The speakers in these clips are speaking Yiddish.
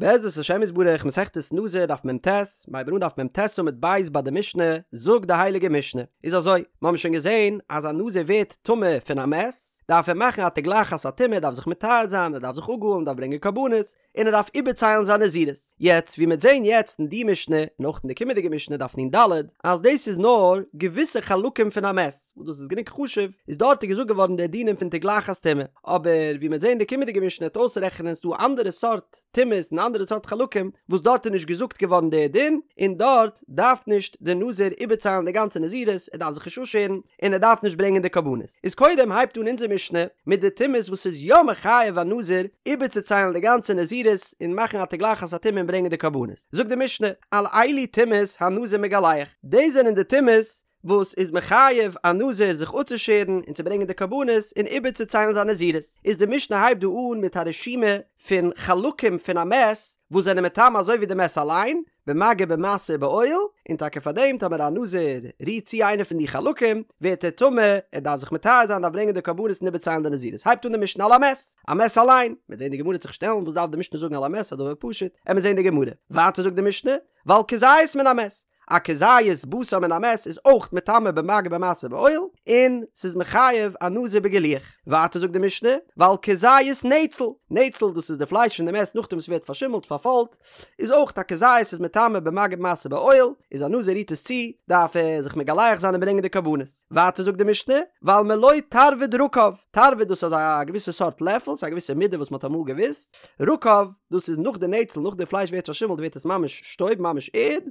בעזרת השם יתברך מסכת נזיר דף מ"ט, מ'הייבן אן דף מ"ט עמוד ב' ביי די משנה, זאגט די הייליגע משנה, איז אזוי, מ'האבן שוין געזען אז א נזיר ווערט טמא פון א מת, דארף ער מאכן א תגלחת הטומאה, דארף זיך מטהר זיין, ער דארף זיך אפגאלן, דארף ברענגען קרבנות, און ער דארף איבערציילן זיין נזירות. יעצט ווי מ'עט זען יעצט אין די משנה, און אויך אין די קומענדיגע משנה דף נ"ד, אז דאס איז נאר געוויסע חלקים פון א מת, וואס דאס איז גענוג חשוב, איז דארט איז געזאגט געווארן די דינים פון תגלחת טומאה, אבער ווי מ'עט זען אין די קומענדיגע משנה וועט אויסרעכענען ס'דא אנדערע סארט טומאות און אנדערע סארט חלקים וואס דארט איז נישט געזאגט געווארן די דין, און דארט דארף נישט די נזיר איבערציילן די גאנצע נזירות, ער דארף זיך נישט אפשערן, און ער דארף נישט ברענגען די קרבנות. איז קודם הייבט אן אונזער משנה מיט די טומאות וואס איז יא מחייב א נזיר איבערצוציילן די גאנצע נזירות און מאכן א תגלחת הטומאה און ברענגען די קרבנות. זאגט די משנה, על אלו טומאות הנזיר מגלח, דאס זענען די טומאות וואס איז מחייב א נזיר זיך אפצושערן און צו ברענגען די קרבנות און איבערצוציילן זיין נזירות, איז די משנה הייבט דא אן מיט א רשימה פון חלקים פון א מת וואס זענען מטמא אזוי ווי די מת אליין, במגע במשא ובאוהל, און טאקע פאר דעם טאמער א נזיר רירט צו איינע פון די חלקים ווערט ער טמא, ער דארף זיך מטהר זיין דארף ברענגען די קרבנות און איבערציילן די נזירות, הייבט אן די משנה על המת, א מת אליין, מ'וועט זען די גמרא וועט זיך שטעלן וואס דארף די משנה זאגן על המת א דבר פשוט, עמיר זען די גמרא, ווייטער זאגט די משנה, ועל כזית מן המת, א כזית בשר מן המת איז אויך מטמא במגע במשא ובאוהל, און ס'איז מחייב א נזיר בגילוח. ווייטער זאגט די משנה, ועל כזית נצל, נצל דאס איז די פלייש פון די מת נאכדעם וואס ס'ווערט פארשימלט, פארפוילט, איז אויך א כזית איז מטמא במגע במשא ובאוהל, איז א נזיר רירט עס צו, דארף ער זיך מגלח זיין און ברענגען די קרבנות. ווייטער זאגט די משנה, ועל מלא תרווד רקב, תרווד דאס איז א געוויסע סארט לעפל, ס'איז א געוויסע מידה וואס מ'האט אמאל געוואוסט, רקב, דאס איז נאך די נצל, נאך די פלייש ווערט פארשימלט ווערט עס ממש שטויב, ממש ערד,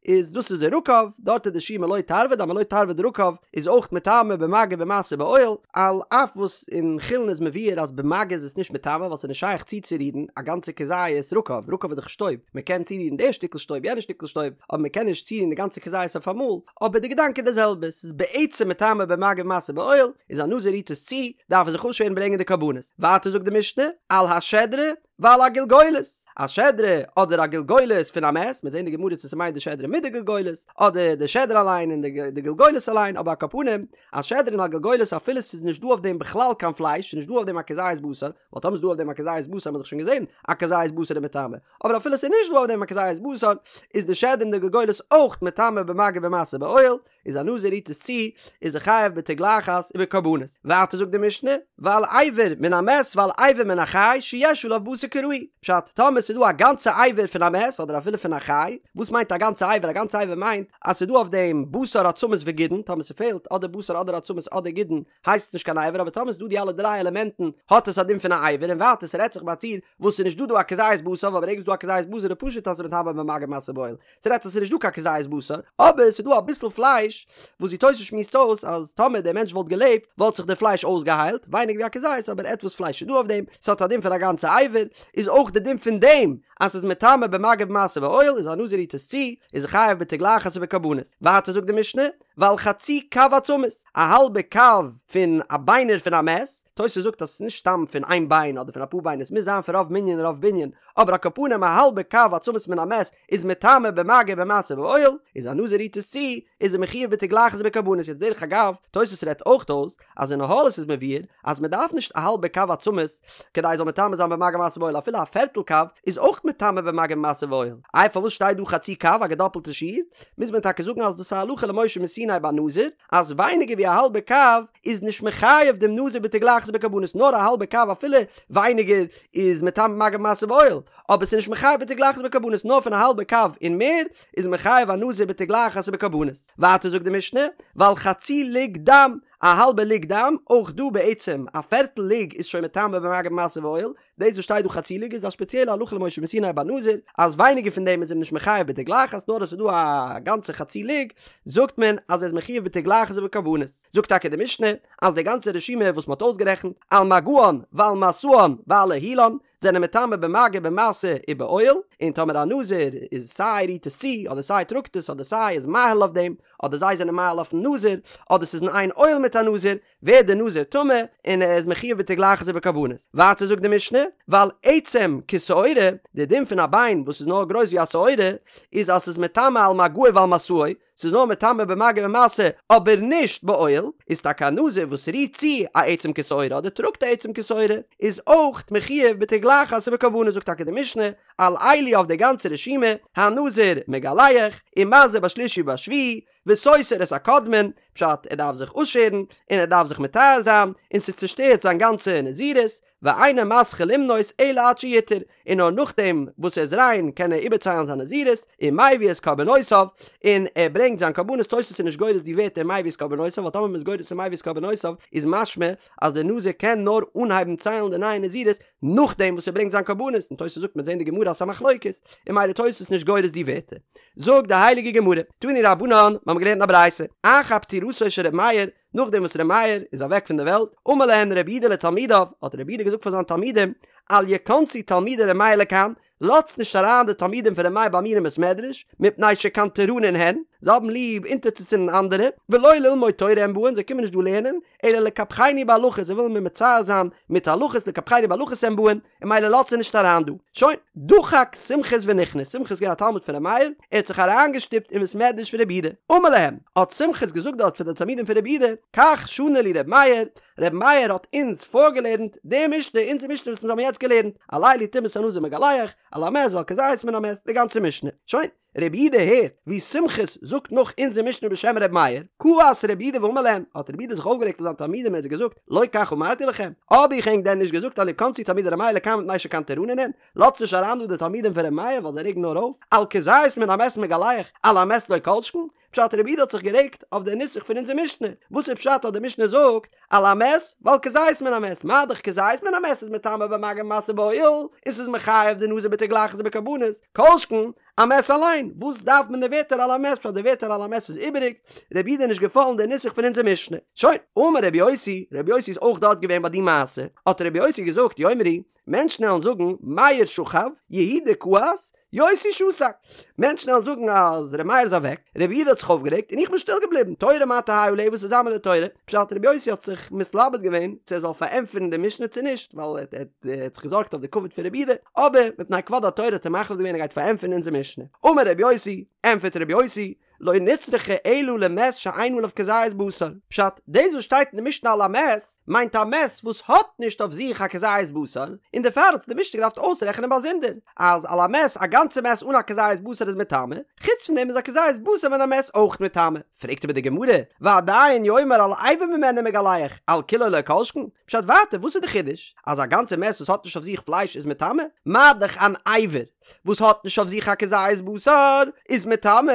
איז דאס איז די רקב, דארט איז די שיעור מלא תרווד, א מלא תרווד רקב איז אויך מטמא במגע במשא ובאוהל, על אף וואס אין חולין איז מבואר אז במגע איז עס נישט מטמא ווייל ס'איז נישט שייך צוצורירן א גאנצע כזית רקב, רקב איז דאך שטויב, מ'קען צורירן די שטיקל שטויב יענע שטיקל שטויב, אבער מ'קען נישט צורירן די גאנצע כזית אויפאמאל, אבער די געדאנק איז די זעלבע, ס'איז בעצם מטמא במגע במשא ובאוהל, איז א נזיר רירט עס צו, דארף ער זיך אפשערן ברענגען די קרבנות. ווייטער זאגט די משנה, על השדרה ועל הגלגולת, א שדרה אדער א גלגולת פון א מת, מיר זעהן די גמרא צו ס'מיינט די שדרה מיט די גלגולת, אדער די שדרה אליין און די גלגולת אליין, אבער על כל פנים, א שדרה און א גלגולת אפילו ס'איז נישט דא אויף דעם בכלל קיין פלייש, ס'איז נישט דא אויף דעם א כזית בשר, ווייל טאמער ס'איז דא אויף דעם א כזית בשר האט מען דאך שוין געזען א כזית בשר איז מטמא, אבער אפילו ס'איז נישט דא אויף דעם א כזית בשר, איז די שדרה און די גלגולת אויך מטמא במגע במשא ובאוהל, איז א נזיר רירט עס צו, איז ער חייב בתגלחת ובקרבנות. ווייטער זאגט די משנה, ועל אבר מן המת ועל אבר מן החי שיש עליו בשר כראוי, פשט, טאמער ס'איז דא א גאנצע אבר פון א מת אדער אפילו פון א חי, וואס מיינט א גאנצע אבר? א גאנצע אבר מיינט אז ס'איז דא אויף דעם בשר עצמות וגידין, טאמער ס'פעלט אדער בשר אדער עצמות אדער גידין, הייסט עס נישט קיין אבר אבער טאמער ס'איז דא די אלע דריי עלעמענטן האט עס א דין פון א אבר און ווייטער ס'רעדט זיך ביי א ציור וואס ס'איז נישט דא דא א כזית בשר ווייל ברגע ס'איז דא א כזית בשר איז פשוט אז ס'איז מטמא במגע במשא ובאוהל ס'רעדט זיך ס'איז נישט דא קיין כזית בשר אבער ס'איז דא אביסל פלייש וואס ווי תוס' שמועסט אויס אז טאמער דער מענטש וואלט געלעבט וואלט זיך די פלייש אויסגעהיילט ווייניגער ווי א כזית אבער עטוואס פלייש איז דא אויף דעם ס'האט א דין פון א גאנצע אבר איז אויך די דין פון דעם אז ס'איז מטמא במגע במשא ובאוהל איז א נזיר רירט עס צו איז ער חייב בתגלחת ובקרבנות ווייטער זאגט די משנה ועל חצי קב עצמות, א האלבע קב פון א ביינער פון א מת, תוס' זאגט אז עס איז נישט סתם פון איין ביין אדער פון אפאר ביינער עס מוז זיין פון רוב מנין רוב בנין, אבער על כל פנים א האלבע קב עצמות מן המת איז מטמא במגע במשא ובאוהל, איז א נזיר רירט עס צו, איז ער מחויב בתגלחת ובקרבנות, יעצט דרך אגב, תוס' רעדט אויך אויס אז אין אהלות איז מבואר אז מען דארף נישט א האלבע קב עצמות כדי עס זאל מטמא זיין במגע במשא ובאוהל אפילו א פערטל קב איז אויך מטמא במגע במשא ובאוהל, איי פארוואס שטייט דא חצי קב א געדאפלטע שיעור? מוז מען טאקע זאגן אז דאס איז א הלכה למשה מסיני ביי נזיר אז ווייניגער ווי א האלבע קב איז נישט מחייב דעם נזיר בתגלחת ובקרבנות נאר א האלבע קב אפילו ווייניגער איז מטמא במגע במשא ובאוהל אבער ס'איז נישט מחייב בתגלחת ובקרבנות נאר פון א האלבע קב און מער איז מחייב א נזיר בתגלחת ובקרבנות. ווייטער זאגט די משנה ועל חצי לוג דם א האלבע לוג דם, אויך דא בעצם א פערטל לוג איז שוין מטמא במגע במשא ובאוהל, דאס וואס שטייט דא חצי לוג איז א ספעציעלע הלכה למשה מסיני ביי נזיר, אז ווייניגער פון דעם איז אים נישט מחייב בתגלחת נאר אז ס'איז דא א גאנצע חצי לוג זאגט מען אז ער איז מחויב בתגלחת ובקרבנות. זאגט טאקע די משנה אז די גאנצע רשימה וואס מ'האט אויסגערעכנט, על מגען ועל משאן ועל אהילן, זענען מטמא במגע במשא ובאוהל, און טאמער א נזיר איז סיי רירט עס צו, אדער סיי טראגט עס, אדער סיי איז מאהיל אויף דעם, אדער זיי זענען מאהיל אויפן נזיר, אדער ס'איז אין איין אוהל מיט א נזיר, ווערט דער נזיר טמא, און ער איז מחויב בתגלחת ובקרבנות. ווייטער זאגט די משנה, ועל עצם כשעורה, די דין פון א ביין וואס איז נאר גרויס ווי א שעורה, איז אז ס'איז מטמא על מגעו ועל משאו, ס'איז נאר מטמא במגע ומשא אבער נישט באוהל, איז טאקע א נזיר וואס רירט צו א עצם כשעורה אדער טראגט א עצם כשעורה איז אויך מחויב בתגלחת ובקרבנות זאגט טאקע די משנה על אלו אויף די גאנצע רשימה הנזיר מגלח ומזה בשלישי ובשביעי וסותר את הקודמין, פשט ער דארף זיך אויסשערן און ער דארף זיך מטהר זיין און ס'צושטערט זיין גאנצע נזירות, ואינו מתחיל למנות אלא עד שיטהר, און נאר נאכדעם וואס ער איז ריין קען ער איבערציילן זיין נזירות, ומביא את קרבנותיו, און ער ברענגט זיין קרבנות, תוס' איז נישט גורס די ווערטער מביא את קרבנותיו, ווייל טאמער מ'איז גורס ומביא את קרבנותיו איז משמע אז דער נזיר קען נאר אנהייבן ציילן די נייע נזירות נאכדעם וואס ער ברענגט זיין קרבנות, און תוס' זאגט מ'וועט זען די גמרא אז ס'איז א מחלוקת, און ממילא תוס' נישט גורס די ווערטער. זאגט די הייליגע גמרא, תנו רבנן, מ'האמיר געלערנט אין א ברייתא, אחר פטירתו של ר' מאיר, נאכדעם וואס ר' מאיר איז אוועק פון דער וועלט, אמר להן רבי יהודה לתלמידיו, האט רבי יהודה געזאגט פאר זיינע תלמידים, אל יכנסו תלמידי ר' מאיר לכאן, לאזטס נישט אריין די תלמידים פון ר' מאיר ביי מיר אין בית מדרש, מפני שקנטרנין הן, זיי האבן ליב אונטערצוצינדן אנדערע, ולא ללמוד תורה הם באין, זיי קומען נישט דא לערנען, אלא לקפחני בהלכות, זיי ווילן מיר מצער זיין מיט הלכות, לקפחני בהלכות הם באין, און ממילא לאזט זיי נישט אריין דא. שוין, דחק סומכוס ונכנס, סומכוס איז געווען א תלמיד פון ר' מאיר, ער האט זיך אריינגעשטופט אין בית מדרש פון רבי יהודה. אמר להם, האט סומכוס געזאגט דארט פאר די תלמידים פון רבי יהודה, כך שנה לי ר' מאיר, ר' מאיר האט אונז פארגעלערנט די משנה, אונזער משנה וואס אונז האבן יעצט געלערנט, על אלו טומאת הנזיר מגלח, על המת ועל כזית מן המת, די גאנצע משנה. שוין. רבי יהודה הערט ווי סומכוס זאגט נאך אונזער משנה בשם ר' מאיר, כעס רבי יהודה ואמר להם, האט רבי יהודה זיך אויפגערעגט אויף זיינע תלמידים און האט זיי געזאגט, לא כך אמרתי לכם, האב איך ענק דען נישט געזאגט אל יכנסו תלמידי ר' מאיר לכאן מפני שקנטרנין הן, לאזטס נישט אריין דא די תלמידים פון ר' מאיר ווייל זיי רעגן נאר אויף, על כזית מן המת מגלח, על המת לא כל שכן, פשט רבי יהודה האט זיך גערעגט אויף די נוסח פון אונזער משנה, וואס איז פשט אז די משנה זאגט על המת ועל כזית מן המת, מה דאך כזית מן המת איז מטמא במגע ומשא באוהל, און ס'איז מחייב די נזיר בתגלחת ובקרבנות, כל שכן א מת אליין, וואס דארף מען די ווערטער על המת פשט די ווערטער על המת איז איבעריג, רבי יהודה איז נישט געפאלן די נוסח פון אונזער משנה. שוין, אמר רבי יוסי, רבי יוסי איז אויך דארט געווען ביי די מעשה, האט רבי יוסי געזאגט יאמרו, מענטשן וועלן זאגן, מאיר שכב, יהודה כעס, יוסי שתק. מענטשן וועלן זאגן אז ר' מאיר איז אוועק, ר' יהודה האט זיך אויפגערעגט און איך בין שטיל געבליבן, תורה מה תהא עליה וואס וועט זיין מיט די תורה? פשט ר' יוסי האט זיך מתלבט געווען צו ער זאל פארענטפערן די משנה צו נישט, ווייל ער האט זיך געזארגט אויף די כבוד פון ר' יהודה, אבער מפני כבוד התורה האט ער מחליט געווען ער גייט פארענטפערן אונזער משנה. אמר ר' יוסי, ענטפערט ר' יוסי, לא נצרכה אלא למת שאין עליו כזית בשר. פשט, דאס וואס שטייט אין די משנה על המת, מיינט א מת וואס האט נישט אויף זיך א כזית בשר, און דערפאר האט די משנה געדארפט אויסרעכענען באזונדער, אז על המת, א גאנצע מת אן א כזית בשר איז מטמא, חוץ פון דעם איז א כזית בשר מן המת אויך מטמא. פרעגט אבער די גמרא, ועדיין יאמר על אבר ממנו מגלח, על כולו לא כל שכן? פשט ווייטער, וואס איז די חידוש? אז א גאנצע מת וואס האט נישט אויף זיך פלייש איז מטמא? מה דאך אן אבר וואס האט נישט אויף זיך א כזית בשר איז מטמא,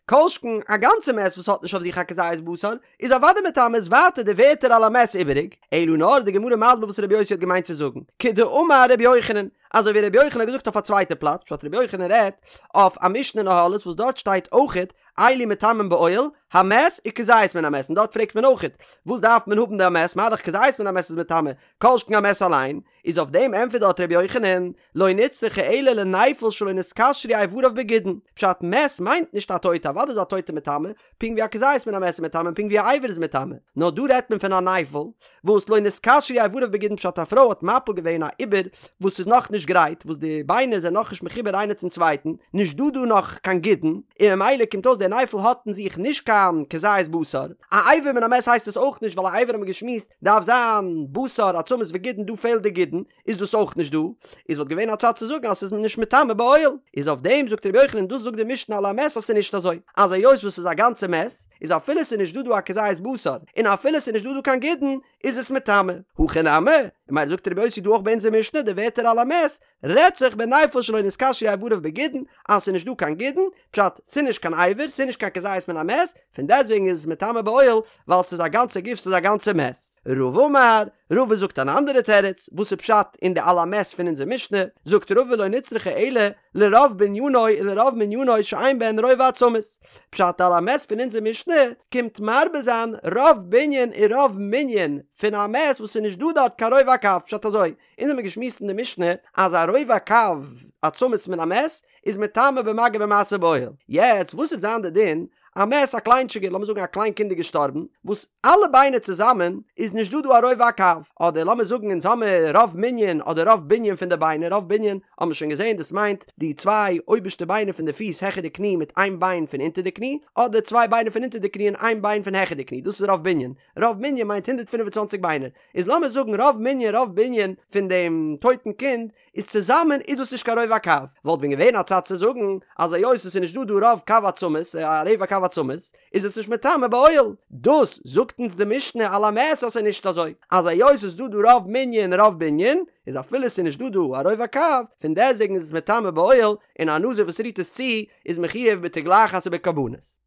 כל שכן א גאנצע מת וואס האט נישט אויף זיך א כזית בשר איז אוודאי מטמא איז ווייטער די ווערטער על המת איבעריג, אלא נאר די גמרא מסביר וואס רבי יוסי האט געמיינט צו זאגן, כדאמר רבי יוחנן, אזוי ווי רבי יוחנן האט געזאגט אויף א צווייטע פלאץ, פשט רבי יוחנן רעדט אויף א משנה אין אהלות וואס דארט שטייט אויכעט אלו מטמאין באוהל, המת וכזית מן המת, און דארט פרעגט מען אויכעט וואס דארף מען האבן די המת, מה דאך כזית מן המת איז מטמא, כל שכן א מת אליין, איז אויף דעם ענטפערט דארט רבי יוחנן, לא נצרכה אלא לנפל שלא נתקשרו איבריו בגידין, פשט מת מיינט נישט א טויטע, אוודאי איז א טויטע מטמא, פונקט ווי א כזית מן המת איז מטמא און פונקט ווי א אבר איז מטמא, נאר דא רעדט מען פון א נפל וואס לא נתקשרו איבריו בגידין פשט א פרוי האט מפיל געווען א עובר וואס איז נאך נישט גרייט וואס די ביינער זענען נאך נישט מחובר איינער צום צווייטן, נישט דא דא נאך קיין גידין, און ממילא קומט אויס דער נפל האט אין זיך נישט קיין כזית בשר, א אבר מן המת הייסט עס אויך נישט ווייל א אבר האט מען געשמועסט דארף זיין בשר עצמות וגידין דא פעלט די גידין איז דאס אויך נישט דא איז וואלט געווען א צד צו זאגן אז ס'איז נישט מטמא באוהל איז אויף דעם זאגט רבי יוחנן דאס זאגט די משנה על המת אז ס'איז נישט אזוי אז היות וואס ס'איז א גאנצע מת איז אפילו ס'איז נישט דא דא א כזית בשר און אפילו ס'איז נישט דא דא קיין גידין איז עס מטמא הכא נמי און ממילא זאגט רבי יוסי דא אויך ביי אונזער משנה די ווערטער על המת רעדט זיך בנפל שלא נתקשרו איבריו בגידין אז ס'איז נישט דא קיין גידין פשט ס'איז נישט קיין אבר ס'איז נישט קיין כזית מן המת פון דעסטוועגן איז עס מטמא באוהל ווייל ס'איז א גאנצע גוף ס'איז א גאנצע מת. רבא אמר, רבא זאגט אן אנדערע תירוץ, וואס איז פשט אין די על המת פון אונזער משנה, זאגט רבא לא נצרכה אלא לרוב בנינו ולרוב מנינו שאין בהן רובע עצמות, פשט על המת פון אונזער משנה קומט מרבה זיין רוב בנין און רוב מנין פון א מת וואס איז נישט דא דארט קיין רובע הקב, פשט אזוי, אונז האמיר געשמועסט אין די משנה אז א רובע קב עצמות מן המת איז מטמא במגע ובמשא באוהל. יעצט וואס וועט זיין די דין. א מת א קליינטשיגער, לאמיר זאגן א קליין קינד איז געשטארבן, וואס אלע ביינער צוזאמען איז נישט דא דא א רובע הקב, אדער לאמיר זאגן אונז האמיר רוב מנין אדער רוב בנין פון די ביינער, רוב בנין האבן מיר שוין געזען דאס מיינט די צוויי אויבערשטע ביינער פון די פיס העכער די קני מיט איין ביין פון אונטער די קני, אדער צוויי ביינער פון אונטער די קני און איין ביין פון העכער די קני, דאס איז רוב בנין, רוב מנין מיינט 125 ביינער, איז לאמיר זאגן רוב מנין רוב בנין פון דעם טויטן קינד איז צוזאמען איז דאס נישט קיין רובע הקב, וואלט ווען געווען א צד צו זאגן אז היות עס איז נישט דא דא רוב קב עצמות א רבע קב עצמות איז עס נישט מטמא באוהל, דאס זאגט אונז די משנה על המת אז ס'איז נישט אזוי, אז היות עס איז דא דא רוב מנין רוב בנין איז אפילו עס איז נישט דא דא א רובע הקב פון דעסוועגן איז עס מטמא באוהל און א נזיר וואס רירט עס צו איז מחויב בתגלחת ובקרבנות.